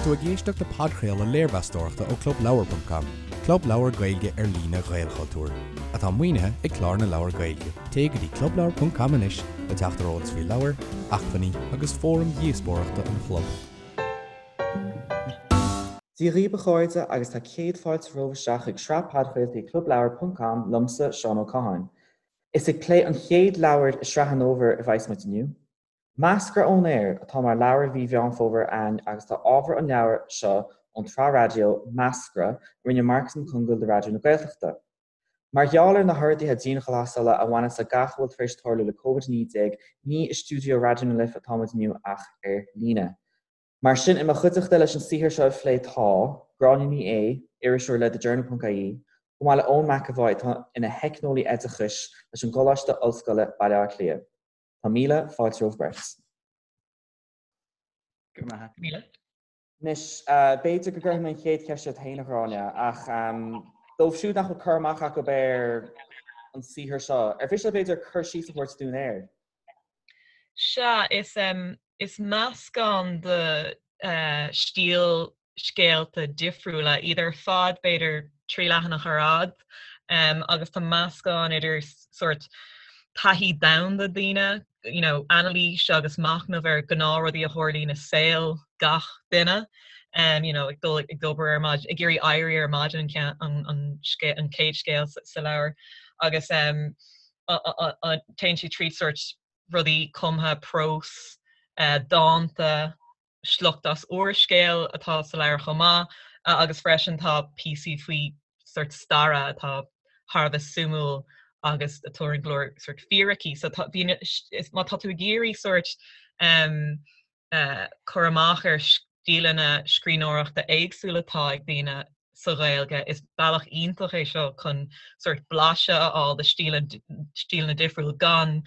tú ag éisteacht le podchraoladh léirmheastóireachta ó ClubLeabhar.com, club leabhar Gaeilge ar líne Ghaelchultúir, atá maoinithe ag Clár na Leabhar Gaeilge. Téigh go dtí clubleabhar.com anois le teacht ar eolas faoi leabhair, acmhainní agus fóraim dhíospóireachta an chlub. Dia dhaoibh a chairde agus tá céad fáilte romhaibh isteach chuig sraith podchraoltaí ClubLeabhar.com liomsa, Seán Ó Catháin. Is ag plé an chéad leabhar i sraith an fhómhair a bheas muid inniu. Meascra ón Aer atá mar leabhar mhí Mheán Fómhair a'ainn agus tá ábhar an leabhair seo ón tsraith raidió Meascra a rinne Marcus Mac Congáil do Raidió na Gaeltachta. Mar gheall ar na horduithe dianghlasála a bhaineas le gach a bhfuil tar éis tarlú le Covid-19 ní i stiúideo Raidió na Life atá muid inniu ach ar líne. Mar sin i mo chuideachta leis an saothar seo a phlé tá, Gráinne Ní Aodha, iriseoir le TheJournal.ie, chomh maith le Eoin McEvoy atá ina theicneolaí oideachais leis an gColáiste Ollscoile, Baile Átha Cliath. Tá míle fáilte romhaibh beirt. Go raibh maith. Míle. Anois, b'fhéidir go gcuirfidh mé an chéad cheist ort féin, a Ghráinne, ach dóibh siúd nach bhfuil cur amach acu ar an saothar seo, ar mhiste leat b'fhéidir cur síos a thabhairt dúinn air? Sea, is, is meascán de stíl scéalta difriúla, iad ar fad b'fhéidir 3 leathanach ar fhad, agus tá meascán idir sórt taithí domhanda daoine, you know, anailís agus machnamh ar ghnáthrudaí a tharlaíonn i saol gach duine, you know, ag dul ag obair ar maidin, ag iarraidh éirí ar maidin an, an, an, an chéad scéal sa leabhar agus téann sé tríd sórt rudaí cumtha, prós, dánta, sliocht as úrscéal atá sa leabhar chomh maith agus freisin tá píosaí faoi sórt staire atá thar a bheith suimiúil agus a tabharann go leor sórt fíricí. So tá, bhí, is, má tá tú ag iarraidh sórt um, uh, cur amach ar stíleanna scríbhneoireachta éagsúla atá ag daoine sa Ghaeilge, is bealach iontach é seo chun sórt blaiseadh a fháil de stíleanna difriúil gan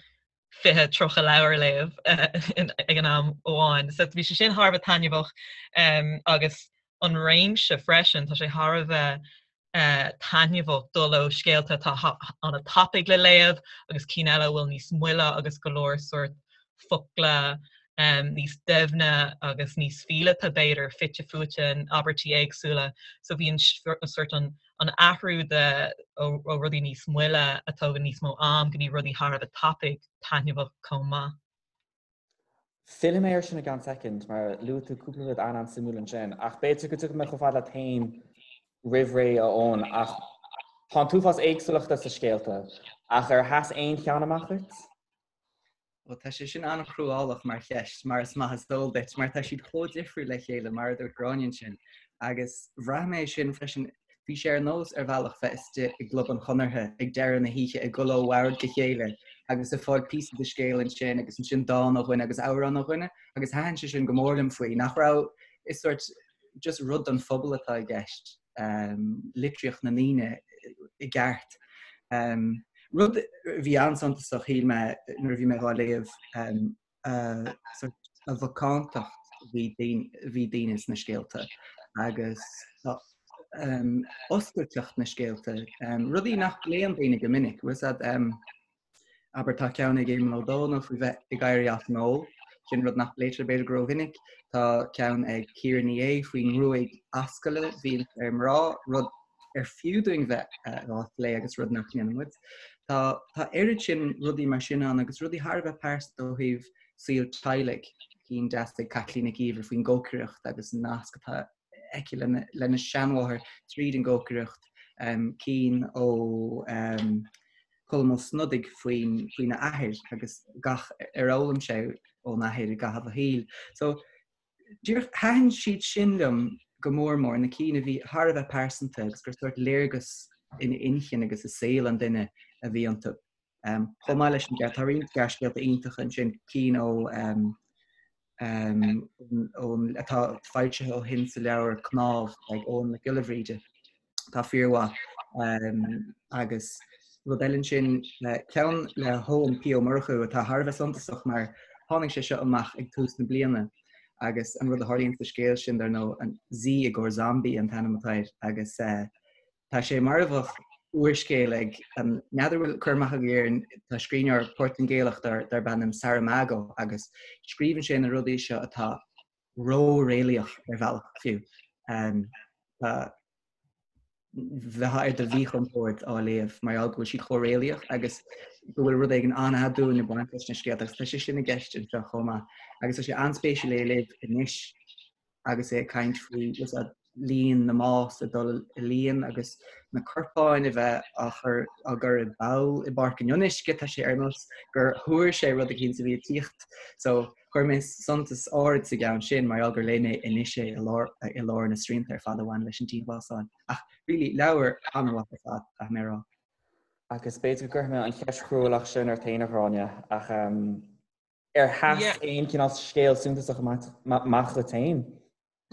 20, 30 leabhar a léamh ag an am amháin. So bhí sé sin thar a bheith taitneamhach agus an réimse freisin, tá sé thar a bheith taitneamhach dul ó scéalta atá an-tapaidh le léamh agus cinn eile a bhfuil níos moille agus go leor sórt focla níos doimhne agus níos fileata b'fhéidir fite fuaite in abairtí éagsúla. So bhí an sórt an an athrú de ó rudaí níos moille a tógann níos mó am go dtí rudaí thar a bheith tapaidh, taitneamhach chomh maith. Fillfidh mé air sin i gceann soicind mar luaigh tú cúpla rud an-an-suimiúil ansin ach b'fhéidir go dtiocfaidh mé chomh fada leat féin roimh ré a Eoin ach tá an t-uafás éagsúlachta sa scéalta ach ar sheas aon cheann amach duit? Bhuel, tá sé sin an-chruálach mar cheist, mar is maith is eol duit, mar tá siad chomh difriúil le chéile, mar a dúirt Gráinne ansin. Agus bhraith mé sin freisin, bhí sé ar nós ar bhealach bheith istigh i gClub an Chonartha ag deireadh na hoíche ag dul ó bhord go chéile agus ag fáil píosa de scéal ansin agus ansin dán ó dhuine agus amhrán ó dhuine agus thaitin sé sin go mór liom faoi, nach raibh, is sórt just rud don phobal atá i gceist. litríocht na ndaoine i gceart. Rud a bhí an-suntasach shíl mé nuair a bhí mé dhá léamh a mhacántacht a bhí daoine sna scéalta agus oscailteacht na scéalta, rudaí nach bpléann daoine go minic. Abair, tá ceann ag Éamonn Ó Dónaill faoi bheith ag éirí as an ól, sin rud nach bpléitear b'fhéidir go rómhinic. Tá ceann ag Ciara Ní É faoin ngruaig ascaille a bhíonn ar mná, rud ar fiú dúinn bheith á phlé agus rud nach ndéanann muid. Tá tá oiread sin rudaí mar sin ann agus rudaí thar a bheith pearsanta ó thaobh saol teaghlaigh, cinn deasa ag Caitlín Nic Íomhair faoin gcócaireacht agus an nasc atá aici lena lena seanmháthair tríd an gcócaireacht, cinn ó Colm Ó Snodaigh faoin faoina athair agus gach ar fhoghlaim sé ón athair i gcaitheamh a shaoil. So díreach thaitin siad sin liom go mór mór, na cinn a bhí thar a bheith pearsanta agus gur sórt léargas in inchinn agus i saol an duine a bhí iontu. Um, chomh maith leis an gceart, tá roinnt gearrscéalta iontacha ansin, cinn ó um, um, ón, atá foilsithe ó shin sa leabhar Cnámh ag Eoghan Mac Giolla Bhríde. Tá fíormhaith. Agus rud eile ansin, ceann le hEoin P. Ó Murchú atá thar a bheith suntasach mar tháinig sé seo amach ag tús na bliana agus an rud a tharlaíonn sa scéal sin, dar ndóigh, an Z i gcomhair Zombie an t-ainm atá air agus tá sé mar a bheadh úrscéal ag, n'fheadar bhfuil cur amach agaibh air, tá scríbhneoir Portaingéalach darb ainm Saramago agus scríobhann sé na rudaí seo atá. ró-réalaíoch ar bhealach fiú. Tá bheifeá ar do mhíchompord á léamh mar gheall go bhfuil siad chomh réalaíoch agus go bhfuil rud éigin an-aduain ag baint leis na scéalta agus tá sé sin i gceist anseo chomh maith. Agus tá sé an-spéisiúil é a léamh anois agus é ag caint faoi líon na mbás ag dul i líon agus na corpáin a bheith á chur á gcur i bpoll i bPáirc an Fhionnuisce, tá sé ar nós gur thuar sé rud eicínt a bhí ag tíocht. So chuir mé suntas áirid sa gceann sin mar gheall gur léigh mé anois é i lár i lár na srianta ar fad a bhain leis an dianghlasáil. Ach really leabhar an-mhaith ar fad, caithfidh mé a rá. Agus b'fhéidir go gcuirfidh mé an cheist chruálach sin ort féin, a Ghráinne, ach ar sheas aon chineál scéal suntasach amach duit féin?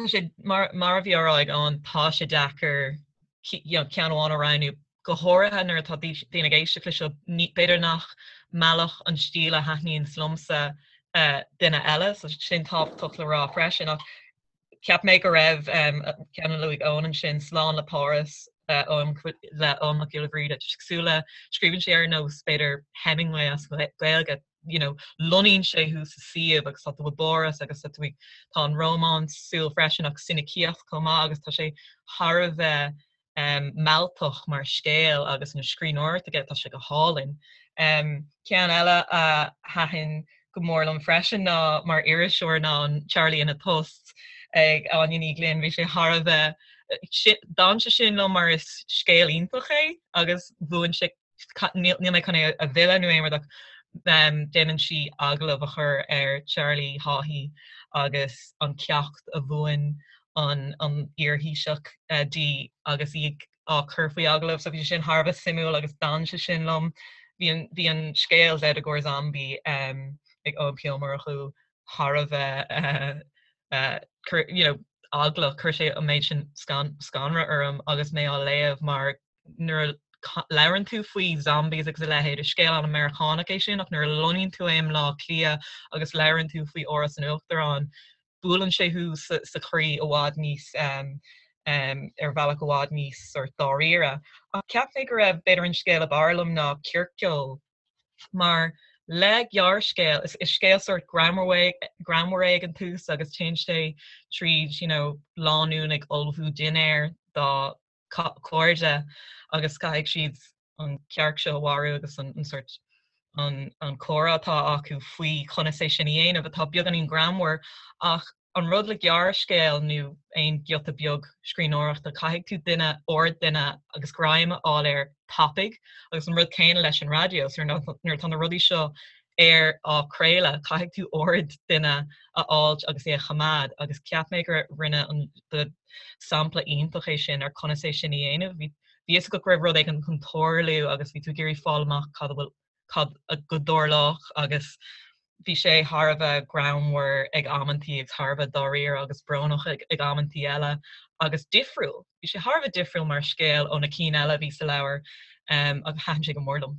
Tá sé, mar a bhí á rá ag Eoin, tá sé deacair ceann amháin a roghnú, go háirithe nuair atá daoine ag éisteacht leis seo, b'fhéidir nach meallfadh an stíl a thaitníonns liomsa duine eile, so sin tábhachtach le rá freisin. Ach cheap mé go raibh ceann a luaigh Eoin ansin, Slán le Páras, le Eoin Mac Giolla Bhríde, cosúil le, scríobhann sé ar nós, b'fhéidir, Hemingway as Gaeilge, you know, lonnaíonn sé thú sa suíomh agus tá tú i bPáras agus tá tú ag, tá an rómánsúil freisin ach soinicíocht chomh maith agus tá sé thar a bheith um, mealltach mar scéal agus an scríbhneoireacht aige tá sé go hálainn. Um, ceann eile a thaitin go mór liom freisin ná mar iriseoir ná an Charlie ina Thost ag Áine Ní Ghlinn, bhí sé thar a bheith d'fhan sé sin liom mar is scéal iontach é agus bhuain sé níl mé chun é a mhilleadh nó aon rud ach déanann sí agallamh a chur ar Charlie Haughey agus an ceacht a mhúin an iar-Thaoiseach di agus í á cur faoi agallamh. So bhí sé sin thar a bheith suimiúil agus d'fhan sé sin liom. Bhí an bhí an scéal Zydeco Zombie ag Eoin P. Ó Murchú thar a bheith you know eaglach, chuir sé an méid sin scanradh orm agus mé á léamh mar nuair a labhrann tú faoi zombies agus a leithéid, is scéal an-Mheiriceánach é sin ach nuair a lonnaíonn tú i mBleá Cliath agus labhrann tú faoi Áras an Uachtaráin, buaileann sé thú sa chroí i bhfad níos, ar bhealach i bhfad níos sort dáiríre. Ach cheap mé go raibh, b'fhéidir an scéal ab fhearr liom ná Circeoil mar le gearrscéal, is scéal sort greannmhar é ag an tús agus téann sé tríd, you know, lánúin ag ullmhú dinnéir dá cairde agus caithfidh siad an cearc seo a mharú agus an sort an an comhrá atá acu faoi conas é sin a dhéanamh atá beagáinín greannmhar ach an rud le gearrscéal nó aon giota beag scríbhneoireachta caithfidh tú duine aird duine agus greim a fháil air tapaidh agus an rud céanna leis an raidió so nuair atá na rudaí seo ar á craoladh caithfidh tú aird duine a fháilt agus é a choimeád agus cheap mé gur rinne an sampla iontach é sin ar conas é sin a dhéanamh. Bhí fhios agat go raibh rud éigin chun tarlú agus bhí tú ag iarraidh fáil amach cad a bhfuil cad a go dtarlódh agus bhí sé thar a bheith greannmhar ag amantaí agus thar a bheith dáiríre agus brónach ag ag amantaí eile agus difriúil. Bhí sé thar a bheith difriúil mar scéal ó na cinn eile a bhí sa leabhar um, agus thaitin sé go mór liom.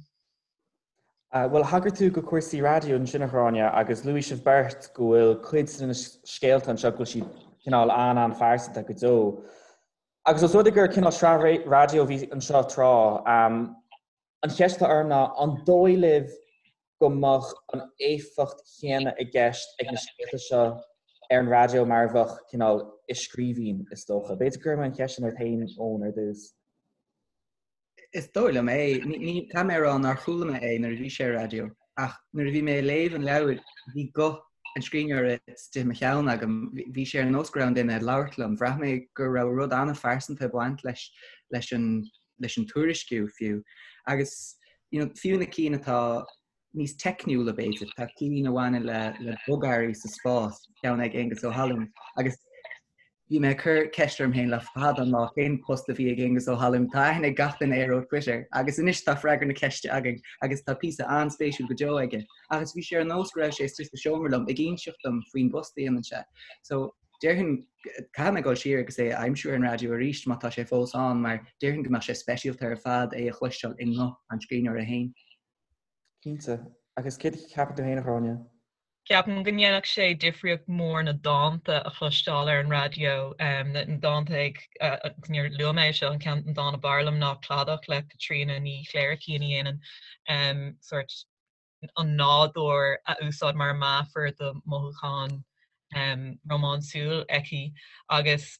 Bhuel, thagair tú go cúrsaí raidió ansin, a Ghráinne, agus luaigh sibh beirt go bhfuil cuid de na scéalta anseo go bhfuil siad cineál an-an-phearsanta go deo. Agus os rud é gur cineál sraith raidió a bhí anseo tráth, an cheist atá orm ná an dóigh libh go mbeadh an éifeacht chéanna i gceist ag na scéalta seo ar an raidió mar a bheadh cineál i scríbhinn, is dócha? B'fhéidir go gcuirfidh mé an cheist sin ort féin, Eoin, ar dtús. Is dóigh liom é. Ní caithfidh mé a rá nár chuala mé é nuair a bhí sé ar raidió, ach nuair a bhí mé ag léamh an leabhair, bhí guth an scríbhneora istigh i mo cheann agam. Bhí sé ar nós go raibh an duine ag labhairt liom. Bhraith mé go raibh rud an-phearsanta ag baint leis leis an leis an tuairisciú fiú. Agus you know, fiú na cinn atá níos teicniúla b'fhéidir, tá cinn a bhaineann le le bogearraí sa spás, ceann ag Aengus Ó hAlluin, agus bhí mé ag cur ceist orm féin le fada an lá cén post a bhí ag Aengus Ó hAlluin, tá aithne ag gach duine air ó Twitter agus anois tá freagra na ceiste againn agus tá píosa an-spéisiúil go deo aige. Agus bhí sé ar nós go raibh sé istigh sa seomra liom ag inseacht dom faoin bpost a dhéanann sé. So déarfainn caithfidh mé dul siar agus é a aimsiú ar an raidió arís má tá sé fós ann mar déarfainn go mbeadh sé speisialta ar fad é a chloisteáil i nguth an scríbhneora féin. Cinnte. Agus céard a cheapann tú féin, a Ghráinne? Ceapaim go ndéanfadh sé difríocht mhór na dánta a chloisteáil ar an raidió, na dánta ag, agus níor luaigh mé é seo, an ceann, an dán ab fhearr liom ná Cladach le Caitríona Ní Chléirchín a dhéanann sórt an nádúr a úsáid mar meafar do mhothúcháin. rómánsúil aici agus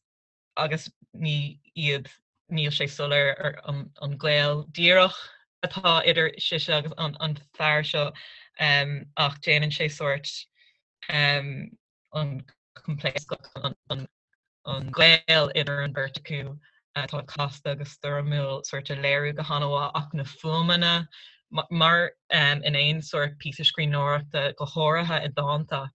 agus ní iad níl sé soiléir ar an gaol díreach atá idir sise agus an fear seo ach déanann sé sórt an coimpléascach an gaol idir an bheirt acu atá casta agus stoirmiúil sórt a léiriú go han-mhaith ach na fuaimeanna mar in aon sórt píosa scríbhneoireachta go háirithe i dánta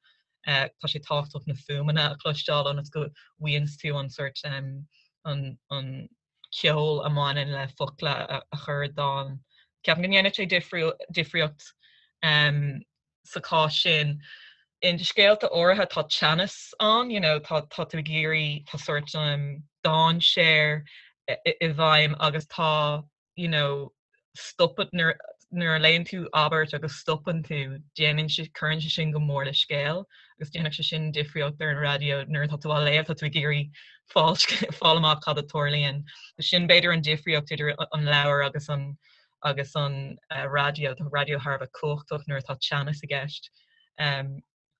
tá sé tábhachtach na fuaimeanna a chloisteáil ionas go bhfaigheanns tú an sórt an ceol a mbaineann le focla a chur i dán. Ceapaim go ndéanann sé difríocht sa chás sin. In scéalta áirithe tá teannas ann, you know, tá tá tú ag iarraidh, tá sórt dainséar i bhfeidhm agus tá, you know, stopadh nuair nuair a léann tú abairt agus stopann tú, déanann sé, cuireann sé sin go mór le scéal agus déanfadh sé sin difríocht ar an raidió nuair atá tú á léamh, tá tú ag iarraidh fáil fáil amach cad a tarlaíonn. Sin b'fhéidir an difríocht idir an leabhar agus an agus an raidió, tá raidió thar a bheith cumhachtach nuair atá teannas i gceist.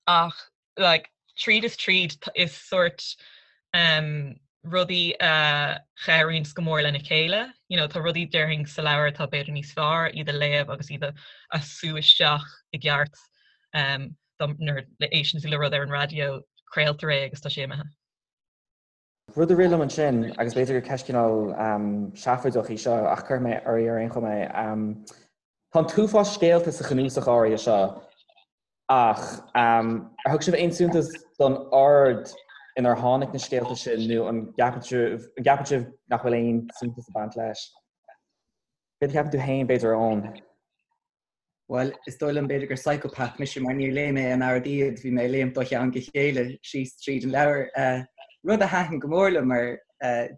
Ach like tríd is tríd is sórt rudaí a chabhraíonns go mór lena chéile. You know, tá rudaí déarfainn sa leabhar atá b'fhéidir níos fearr iad a léamh agus iad a sú isteach i gceart nuair a éisteann tú le rud ar an raidió, craoltar é agus tá sé imithe. Rud a rith liom ansin, agus b'fhéidir gur ceist cineál seafóideach í seo, ach cuirfidh mé oraibh ar aon chuma é. Tá an t-uafás scéalta sa chnuasach áirithe seo, ach ar thug sibh aon suntas don ord inar tháinig na scéalta sin nó an gceapann sibh nach bhfuil aon suntas ag baint leis? Céard a cheapann tú féin, b'fhéidir, a Eoin? Bhuel, is dóigh liom b'fhéidir gur psychopath mise mar níor léigh mé in ord iad, bhí mé ag léimt ó cheann go chéile síos tríd an leabhar. Rud a thaitin go mór liom mar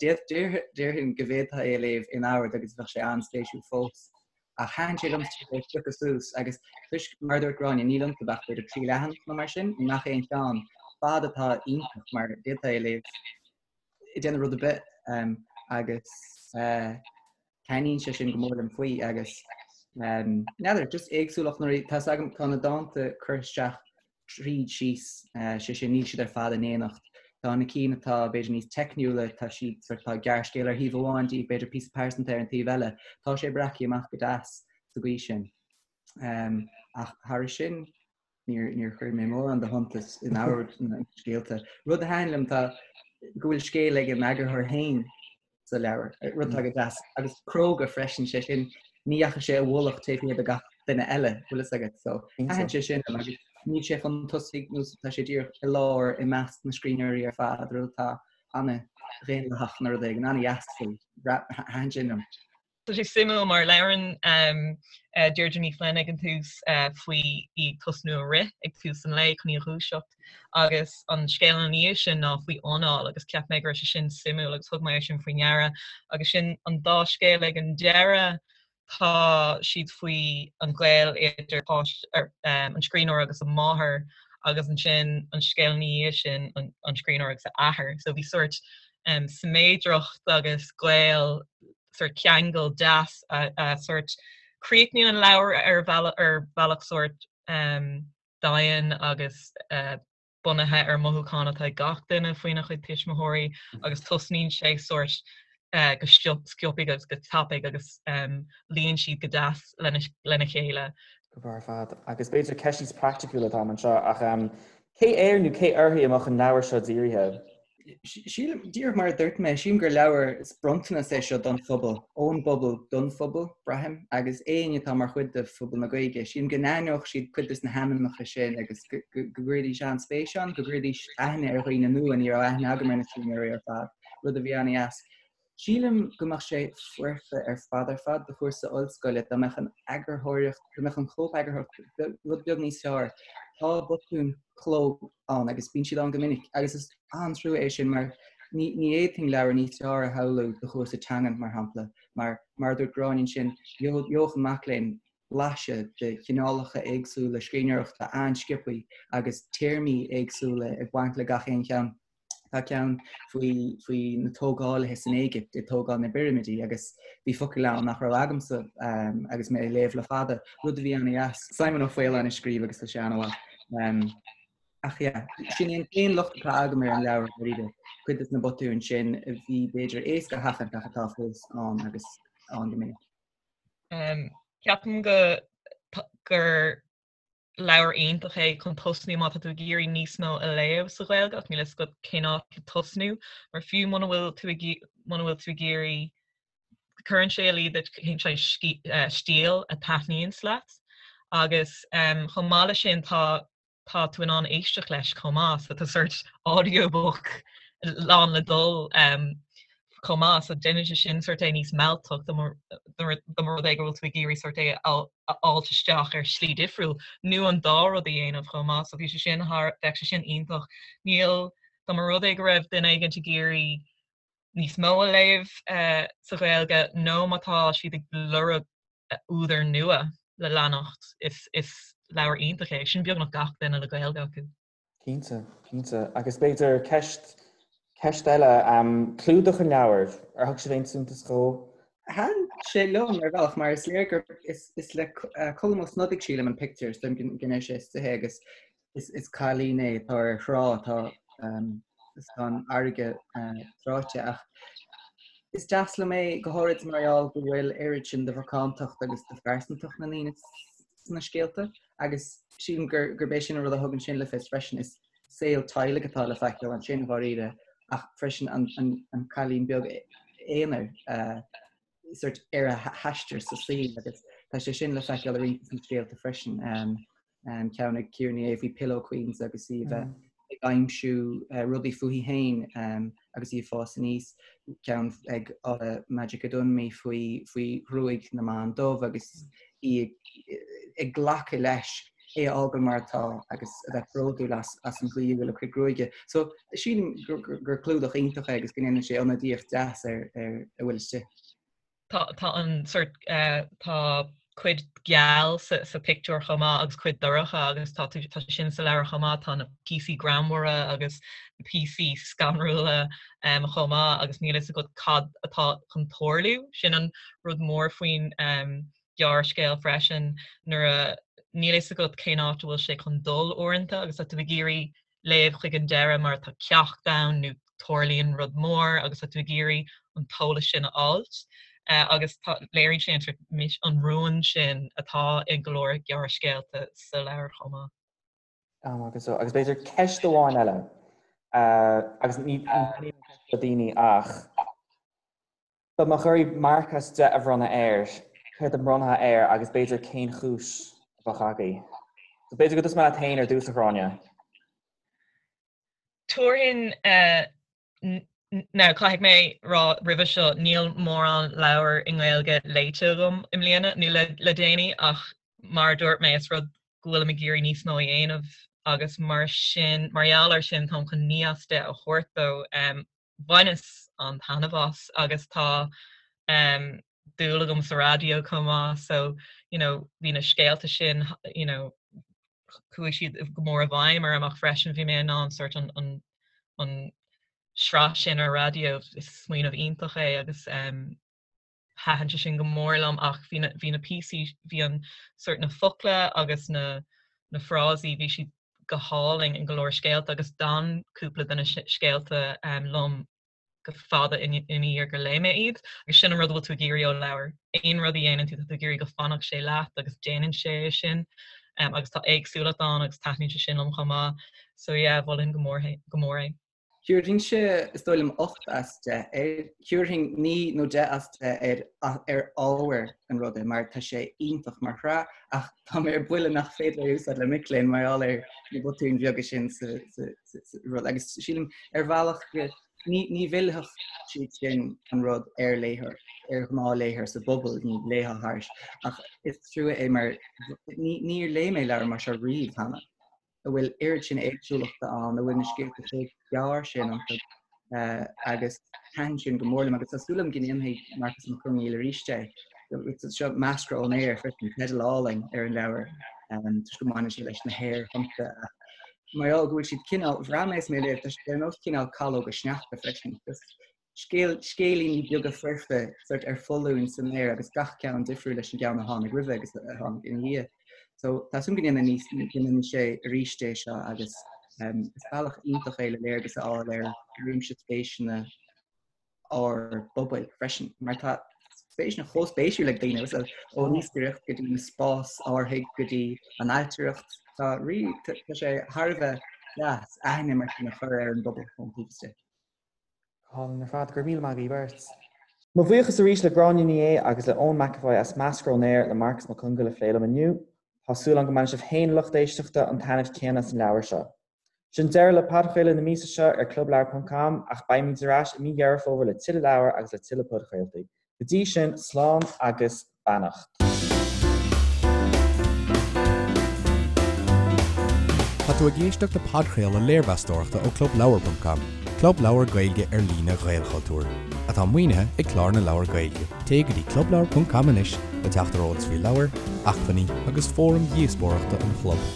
déarfainn go bhféadfá é a léamh in ord agus bheadh sé an-spéisiúil fós. Ach thaitin sé liom é a phiocadh suas agus toisc, mar a dúirt Gráinne, níl iontu ach b'fhéidir 3 leathanach nó mar sin i ngach aon cheann, fad atá iontach mar d'fhéadfá é a léamh ag déanamh rud ar bith agus taitníonn sé sin go mór liom faoi agus n'fheadar, just éagsúlacht nuair tá 's agam tá na dánta curtha isteach tríd síos, sé sin níl siad ar fad in éineacht. Tá na cinn atá b'fhéidir níos teicniúla, tá siad sort tá gearrscéal ar thaobh amháin díobh, b'fhéidir píosa pearsanta ar an taobh eile. Tá sé breactha amach go deas sa gcaoi sin. Ach thairis sin, Níor, níor chuir mé mórán de shuntas in ord na scéalta. Rud a thaitin liom tá go bhfuil scéal ag an eagarthóir féin sa leabhar, rud atá go deas, agus cróga freisin, sé sin, ní dheachaigh sé i bhfolach taobh thiar de gach duine eile, bhfuil fhios agat, so thaitin sé sin liom agus níl sé chun tosaigh nó tá sé díreach i lár i measc na scríbhneoirí ar fad, rud atá an-dhaonlathach nó rud éigin, an-dheas faoi, thaitin sin liom. Tá sé suimiúil mar labhrann Deirdre Ní Fhloinn ag an tús faoi í ag tosnú ag rith ag tús an lae chun í a dhúiseacht agus an scéal ina dhiaidh sin ná faoi anáil agus cheap mé go raibh sé sin suimiúil agus thug mé é sin faoi ndeara agus sin an dá scéal ag an deireadh tá siad faoi an gaol idir an scríbhneoir agus a máthair agus ansin an scéal ina dhiaidh sin an scríbhneoir agus a athair. So bhí sórt siméadracht agus gaol sórt ceangal deas a sórt críochnaíonn an leabhar ar bhealach ar bhealach sórt domhain agus bunaithe ar mothúcháin atá ag gach duine faoina chuid tuismitheoirí agus tosnaíonn sé sórt go sciobtha agus go tapaidh agus luíonn siad go deas lena chéile. Go breá ar fad. Agus b'fhéidir ceist níos praiticiúla atá anseo ach cé air nó cé uirthi a mbeadh an leabhar seo dírithe? Sílim, díreach mar a dúirt mé, sílim gur leabhar, is bronntanas é seo don phobal, ón bpobal don phobal, braithim, agus éinne atá mar chuid de phobal na Gaeilge, sílim go n-aithneodh siad cuid des na hainmneacha sin agus go gcuirfidís an-spéis ann, go gcuirfidís aithne ar dhaoine nua, ní raibh aithne agam ar na scríbhneoirí ar fad, rud a bhí an-dheas. Sílim go mbeadh sé foirfe ar fad ar fad do chúrsa ollscoile dá mbeadh an eagarthóireacht, go mbeadh an chóipeagarthóireacht rud beag níos fearr. Tá botúin chló ann agus bíonn siad ann go minic agus is an-trua é sin mar ní ní fhéadfainn leabhar níos fearr a shamhlú do chúrsa teangan, mar shampla, mar mar a dúirt Gráinne ansin, gheobhadh an mac léinn blaiseadh de chineálacha éagsúla scríbhneoireachta an-sciobthaí agus téarmaí éagsúla ag baint le gach aon cheann. Tá ceann faoi faoi na tógálaithe san Éigipt ag tógáil na bpirimidí agus bhí focail ann nach raibh agamsa agus mé ag léamh le fada, rud a bhí an-dheas. Simon Ó Faoláin a scríobh agus tá sé an-mhaith. Ach yeah, sin é an t-aon locht atá agam ar an leabhar dáiríre, cuid de na botúin sin a bhí b'fhéidir éasca a sheachaint ach atá fós ann agus ann go minic. Ceapaim go gur leabhar iontach é chun tosnú má tá tú ag iarraidh níos mó a léamh sa Ghaeilge ach níl a fhios agat cén áit le tosnú mar fiú muna bhfuil tú ag muna bhfuil tú ag iarraidh cuireann sé i luí duit cén saghas stíl a taitníonns leat agus chomh maith leis sin tá tá tú in ann éisteacht leis chomh maith so tá sort audiobook lán le dul chomh maith so déanann sé sin sort é níos mealltach dá mba rud é go bhfuil tú ag iarraidh sort é a fháilt isteach ar shlí difriúil nó an dá rud a dhéanamh chomh maith so bhí sé sin thar bheadh sé sin iontach. Níl dá mba rud é go raibh duine éigint ag iarraidh níos mó a léamh sa Ghaeilge nó má tá siad ag lorg údar nua le leanacht is is leabhar iontach é sin beagnach gach duine le Gaeilge acu. Cinnte, cinnte. Agus b'fhéidir ceist, ceist eile, clúdach an leabhair, ar thug sibh aon suntas dhó? Thaitin sé liom ar bhealach mar is léir gur is, is le Colm Ó Snodaigh sílim an pictiúr, is dóigh liom go ndeir sé istigh é agus is, is cailín é atá ar thrá atá is tá an fharraige tráite ach is deas liom é go háirid mar gheall go bhfuil oiread sin de mhacántacht agus de phearsantacht na ndaoine sna scéalta agus sílim gur gurb é sin an rud a thugann sin le fios freisin is saol teaghlaigh atá le feiceáil ansin dháiríre ach freisin an, an, an cailín beag aonair uh, sort ar a haistear sa saol agus tá sé sin le feiceáil i roinnt de na scéalta freisin. Um, um, ceann ag Ciara Ní É faoi Pillow Queens agus í bheith mm. ag aimsiú uh, rudaí fúithi féin um, agus í ag fás aníos, ceann ag uh, Majekodunmi faoi, faoi ghruaig na mban dubh agus í ag, ag glacadh leis é a fhágáil mar atá agus a bheith bródúil as, as an gcaoi a bhfuil a cuid gruaige. So sílim gur, gur, gur clúdach iontach é agus go ndéanann sé ionadaíocht deas ar, ar a bhfuil istigh. Tá tá an sort tá cuid geal sa sa pictiúr chomh maith agus cuid dorcha agus tá tú tá sé sin sa leabhar chomh maith, tá na píosaí greannmhara agus na píosaí scanrúla chomh maith agus níl fhios agat cad atá chun tarlú. Sin an rud mór faoin ghearrscéal freisin nuair a níl fhios agat cén áit a bhfuil sé chun dul uaireanta agus tá tú ag iarraidh léamh chuig an deireadh mar tá ceacht ann nó tarlaíonn rud mór agus tá tú ag iarraidh an t-eolas sin a fháilt agus tá, léiríonn sé an sort an rún sin atá i go leor gearrscéalta sa leabhar chomh maith. Agus agus b'fhéidir ceist amháin eile agus ní ní daoine ach dá mbeadh oraibh marc as 10 a bhronnadh air, céard a mbronnfá air agus b'fhéidir cén chúis a bheadh agaibh. So b'fhéidir go dtosóidh mé leat féin ar dtús, a Ghráinne. Tabharfainn, now caithfidh mé rá roimhe seo, níl mórán leabhar i nGaeilge léite agam i mbliana nó le le déanaí ach mar a dúirt mé is rud go bhfuilim ag iarraidh níos mó a dhéanamh agus mar sin, mar gheall air sin táim chun 9 as 10 a thabhairt dó. Bhaineas an-taitneamh as agus tá dúil agam sa raidió chomh maith so you know bhí na scéalta sin you know chuaigh siad go mór i bhfeidhm orm ach freisin bhí mé in ann sort an an an sraith sin ar raidió is smaoineamh iontach é agus um, thaitin sé sin go mór liom ach bhí na bhí na píosaí bhí an sort na focla agus na na frásaí bhí siad go hálainn in go leor scéalta agus d'fhan cúpla de na scéalta um, liom go fada ina dhiaidh gur léigh mé iad agus sin an rud a bhfuil tú ag iarraidh ó leabhar. Aon rud a dhéanann tú tá tú ag iarraidh go fanfadh sé leat agus déanann sé é sin um, agus tá éagsúlacht ann agus taitníonn sé sin liom chomh maith. So yeah, mholfainn go mór go mór é. Thabharfainnse, is dóigh liom, 8 as 10 air. Thabharfainn 9 nó 10 as 10 air ar ábhar an ruda mar tá sé iontach mar shraith ach tá mé ar buile nach féidir é a úsáid le mic léinn mar gheall ar na botúin bheaga sin sa rud. Agus sílim ar bhealach go ní ní mhillfeadh siad sin an rud ar léitheoir, ar ghnáthléitheoir sa bpobal, ní léifeá thairis. Ach is trua é mar níor léigh mé leabhar mar seo riamh cheana. a bhfuil oiread sin éagsúlachta ann, a bhfuil na scéalta chomh gearr sin iontu agus thaitin sin go mór liom agus tá súil agam go ndéanfaidh Marcus Mac Conghail arís é. Seo Meascra ón Aer freisin, teideal álainn ar an leabhar toisc go mbaineann sé leis na haerthonnta. Mar gheall go bhfuil siad cineál, bhraith mé is mé ag léamh, tá siad ar nós cineál calóga sneachta freisin. Just Scéal, scéilíní beaga foirfe sort ar foluain san aer agus gach ceann difriúil leis an gceann a tháinig roimhe agus a tháinig ina dhiaidh. So tá súil go ndéanfaidh níos, go ndéanfaidh sé arís é seo agus. Is bealach iontach é le léargas a fháil ar réimse spéiseanna ár bpobail freisin, mar tá spéiseanna chomh spéisiúil ag daoine, ón iascaireacht go dtí na spás-árthaigh go dtí an ailtireacht, tá rí, tá sé thar a bheith deas aithne mar sin a chur ar an bpobal ón taobh istigh. Go hálainn ar fad, go raibh míle maith agaibh beirt. Mo bhuíochas arís le Gráinne Ní Aodha agus le Eoin McEvoy as Meascra ón Aer le Marcus Mac Congáil a phlé liom inniu. Tá súil agam go mbainfidh sibh féin, a lucht éisteachta, an taitneamh céanna as an leabhar seo. Sin deireadh le podchraoladh na míosa seo ar clubleabhar ponc com ach beimid ar ais i mí Dheireadh Fómhair le tuilleadh leabhar agus le tuilleadh podchraoltaí. Go dtí sin, slán agus beannacht. Tá tú ag éisteacht le podchraoladh léirmheastóireachta ó Clubleabhar ponc com, club leabhar Gaeilge ar líne Ghaelchultúir, atá maoinithe ag Clár na Leabhar Gaeilge. Téigh go dtí clubleabhar ponc com anois le teacht ar eolas faoi leabhair, acmhainní agus fóraim dhíospóireachta an chlub.